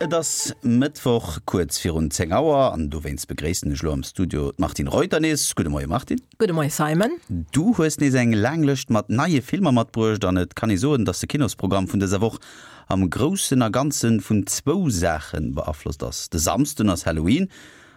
Et ass Mëttwoch kuerz virun 10 Auer an dowéinst begréissen ech elo am Studio d'Martine Reuter nees. Gudde Moie Martine. Gudde Moie Simon. Du hues nees eng laang Lëscht mat neie Filmer matbruecht an et kann ee soen, datt de Kinosprogramm vun dëser Woch am Groussen a Ganze vun zwou Saache beaflosst ass. De Samsden ass Halloween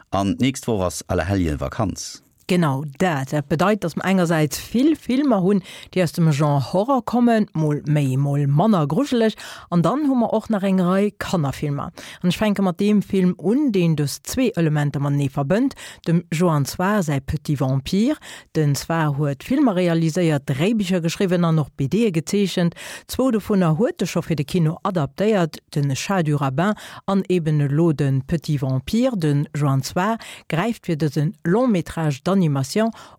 an d'nächst Woch ass Allerhelljevakanz. Genau dat. Dat bedeit, datt mer engersäits vill Filmer hunn, déi aus dem Genre Horror kommen, mol méi, mol manner grujeleg, an dann hu mer och nach eng Rei Kannerfilmer. An ech fänke mat deem Film un, deen dës zwee Elementer matenee verbënnt, dem Joann Sfar säi Petit Vampire. Den Sfar huet Filmer realiséiert, Dréibicher geschriwwen an och BDe gezeechent. Zwou dovunner huet e scho fir de Kino adaptéiert, de Chat du rabbin an eben elo de Petit Vampire. De Joann Sfar gräift fir dëse Long métrage d'animation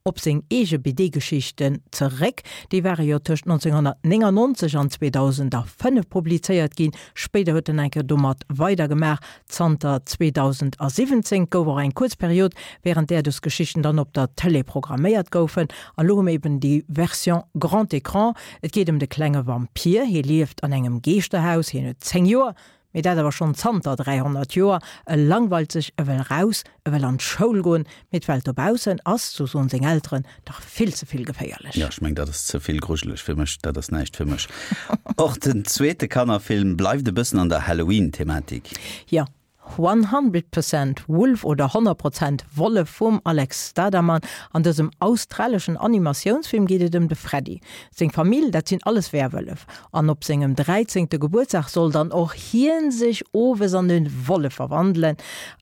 op seng eege BD-Geschichten zeréck. Déi ware jo tëscht 1999 an 2005 publizéiert ginn. Spéider huet en eng Kéier domat weidergemaach. Zanter 2017 gouf och eng kuerz Period, wärend där dës Geschichten dann op der Tëlee programméiert goufen. An elo hu mir eben déi Version grand écran. Et geet ëm de klenge Vampir. Hie lieft an engem Geeschterhaus. Hien huet 10 Joer. Mee dat awer schonn zanter 300 Joer. E langweilt sech, e wëll raus, e wëll an d'Schoul goen, mee d'Welt dobaussen ass, sou soen seng Elteren, dach vill ze vill geféierlech. Jo, ech meng, dat ass ze vill grujeleg fir mech, dat ass näischt fir mech. Och den zweete Kannerfilm bleift e bëssen an der Halloween-Thematik. Jo, 100% Wolf oder 100 Prozent Wollef vum Alex Stadaman. An dësem australeschen Animatiounsfilm geet et ëm de Freddy. Seng Famill, dat sinn alles Werwëllef. An op sengem dräizéngte Gebuertsdag soll dann och hien sech owes an e Wollef verwandelen.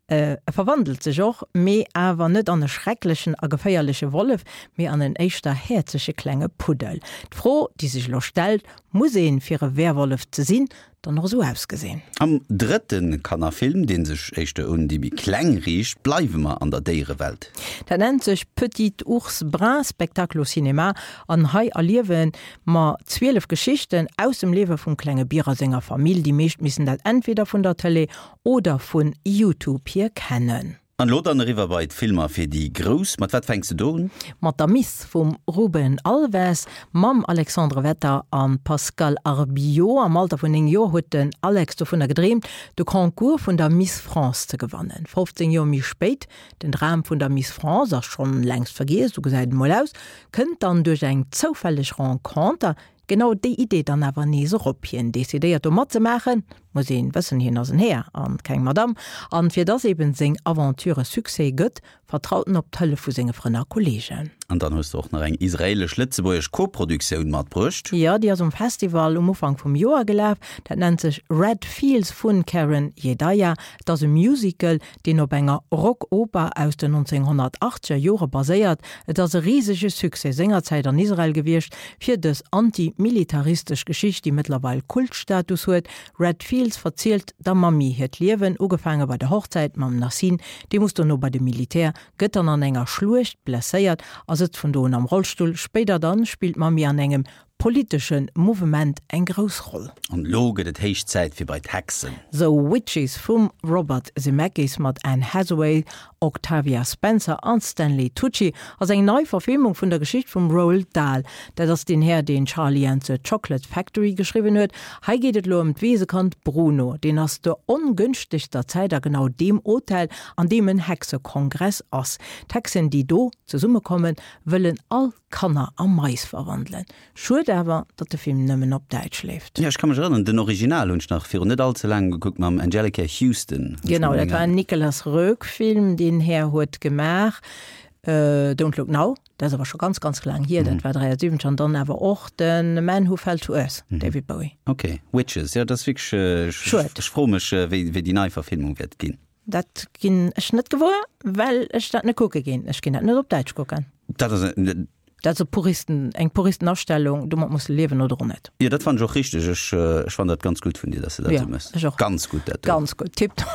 E verwandelt sech och, mee awer net an e schrecklechen a geféierleche Wollef, mee an en éischter häerzege klenge Puddel. D'Fro, déi sech elo stellt, Muss een, fir e Werwollef ze sinn, dann och esou ausgesinn. Am drëtte Kannerfilm, dee sech éischter un déi méi Kleng riicht, bleiwe mer an der Déierewelt. Dat nennt sech Petit ours brun, spectacle au cinéma an hei erliewe mer 12 Geschichten aus dem Liewe vum klenge Bier a senger Famill. Déi meescht missen dat entweder vun der Tëlee oder vun Youtube hier kennen. An elo dann eriwwer bei d'Filmer fir déi Grouss. Mat wat fänks de do un? Mat der Miss vum Ruben Alves, mam Alexandre Wetter a Pascal Arbillot. Am Alter vun 9 Joer huet den Alex dovunner gedreemt, de Concours vun der Miss France ze gewannen. 15 Joer méi spéit, den Dram vun der Miss France ass schonn längst vergiess, esou gesäit et emol aus, kënnt dann duerch eng zoufälleg Renconter Genau déi Idee dann awer nees erop. Hien decidéiert do matzemaachen, muss een wëssen, hien ass en Här an keng Madame, an fir dass eben seng Aventure e Succès gëtt, vertraut en op d'Hëllef vu senge Frënn a Kollegen. An dann hues de och nach eng israelesch-lëtzebuergesch Koproduktioun matbruecht. Jo, déi ass um Festival um Ufank vum Joer gelaf. Dat nennt sech Red Fields vun Karen Yedaya. Et ass e Musical, deen op enger Rock-Oper aus den 1980er Jore baséiert. Et ass e risege Succès sengerzäit an Israel gewiescht, fir dës anti-militaristesch Geschicht, déi mëttlerweil Kultstatus huet. Red Fields verzielt der Mammi hiert Liewen, ugefaange bei der Hochzäit mam Nassim, dee muss dono bei de Militär, gëtt dann an enger Schluecht blesséiert a sëtzt vun do un am Rollstull. Spéider dann spillt d'Mammi an engem politesche Mouvement eng grouss Roll. An elo gëtt et héich Zäit fir bei d'Hexen. The Witches vum Robert Zemeckis mat Anne Hathaway, Octavia Spencer an Stanley Tucci ass eng nei Verfilmung vun der Geschicht vum Roald Dahl. Dat ass deen Här, deen Charlie and the Chocolate Factory geschriwwen huet. Hei geet et elo ëm d'Weesekand Bruno. Deen ass zur ongënschtegster Zäit a genau deem Hotel, an deem en Hexekongress ass. D'Hexen, déi do zesummekommen, wëllen all Kanner a Mais verwandelen. Schued awer, datt de Film nëmmen op Däitsch leeft. Jo, ech ka mech erënneren, den Original hunn ech nach virun net all ze laangem gekuckt mam Anjelica Huston. Genau, dat war en Nicolas Roeg Film, deen Här huet gemaach Don't Look Now, dat ass awer scho ganz, ganz laang hier, dat war 73, an dann awer och de Man Who Fell to Earth, David Bowie. Ok, Witches, jo, dat ass wierklech, Schued. ech froe mech, wéi déi nei Verfilmung wäert ginn. Dat ginn ech net gewuer, well ech dat net kucke ginn. Ech ginn dat net op Däitsch kucken. Dat ass en. Dat ass e Puristen, eng Puristenastellung, domat muss de liewen oder och net. Jo, dat fannen ech och richteg. Ech, ech fannen dat ganz gutt vun dir, dass de dat Jo, esou méchs. ech och. Ganz gutt dat do. Ganz gutt, tiptop.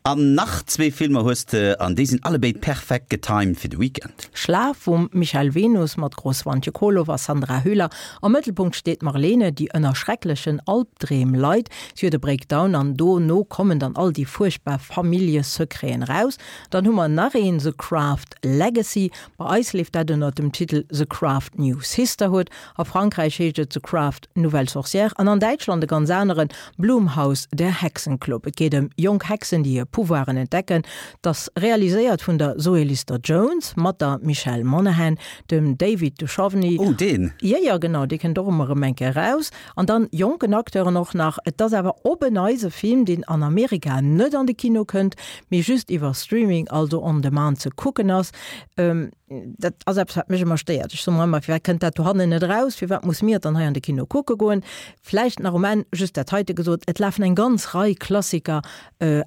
An nach zwee Filmer hues de, an déi sinn allebéid perfekt getimed fir de Weekend. Schlaf vum Michael Venus mat Gro Swantje Kohlhoff a Sandra Hüller. Am Mëttelpunkt steet d'Marlene, déi ënner schrecklechen Albdreem leit. Si huet e Breakdown an dono kommen dann all déi fuerchtbar Familljesecreten eraus. Dann hu mer nach een, The Craft Legacy. Bei eis leeft dat ënner dem Titel The Craft New Sisterhood. A Frankräich heescht et The Craft, Nouvelle Sorcière an an Däitschland e ganz aneren, Blumhouse, Der Hexenclub. Et geet ëm jonk Hexen, déi hir Pouvoiren entdecken. Et ass realiséiert vun der Zoe Lister-Jones mat der Michelle Monaghan, dem David Duchovny. Oh, deen! Jo, jo, genau, dee kënnt och ëmmer erëm eng Kéier eraus. An dann jonken Acteuren och nach. Et ass awer op en Neits e Film, deen an Amerika net an de Kino kënnt, mee just iwwer Streaming, also on demand ze kucken ass. Dat ass eppes, wat mech ëmmer stéiert. Ech soe mer ëmmer, firwat kënnt dat dohannen net eraus? Firwat muss mir et dann hei an de Kino kucke goen? Vläicht nach um Enn just dat heite gesot, Et lafen eng ganz Rei Klassiker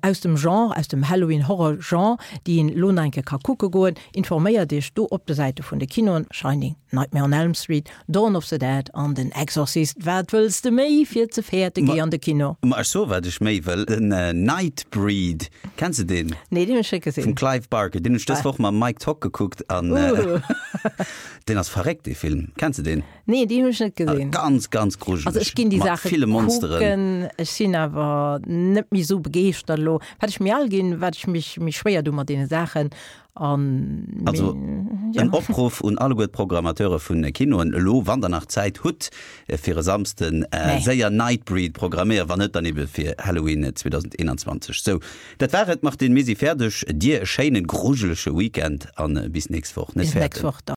aus dem Genre, aus dem Halloween-Horror-Genre, déi een elo nach eng Kéier ka kucke goen. Informéiert Iech do op de Säite vun de Kinoen, Shining, Nightmare on Elm Street, Dawn of the Dead an den Exorcist. Wat wëlls de méi fir ze fäerte? Géi an de Kino! Ma ech soe wat ech méi wëll, den Nightbreed, kenns de deen? Nee, deen hunn ech net gesinn. Vum Clive Barker, deen hunn ech dës Woch mam Mike Tock gekuckt an deen ass verréckt dee Film. Kenns de deen? Nee, deen hunn ech net gesinn. Ganz, ganz grujeleg. Also ech ginn déi Saache kucken, ech sinn awer net méi esou begeeschtert elo. Wat ech méi al ginn, wat ech mech méi schwéier doe mat deene Saachen. An also ja. en Opruff un alleguer d'Programmateure vun Kinoen, elo wann der nach Zäit hutt fir e Samsden nee. séier Nightbreed programméieren, wann net dann ebe fir Halloween 2021. Sou, dat war et Martine, mir si fäerdeg. Dir e schéinen grujelege Weekend an bis nächst Woch. Net fäerten.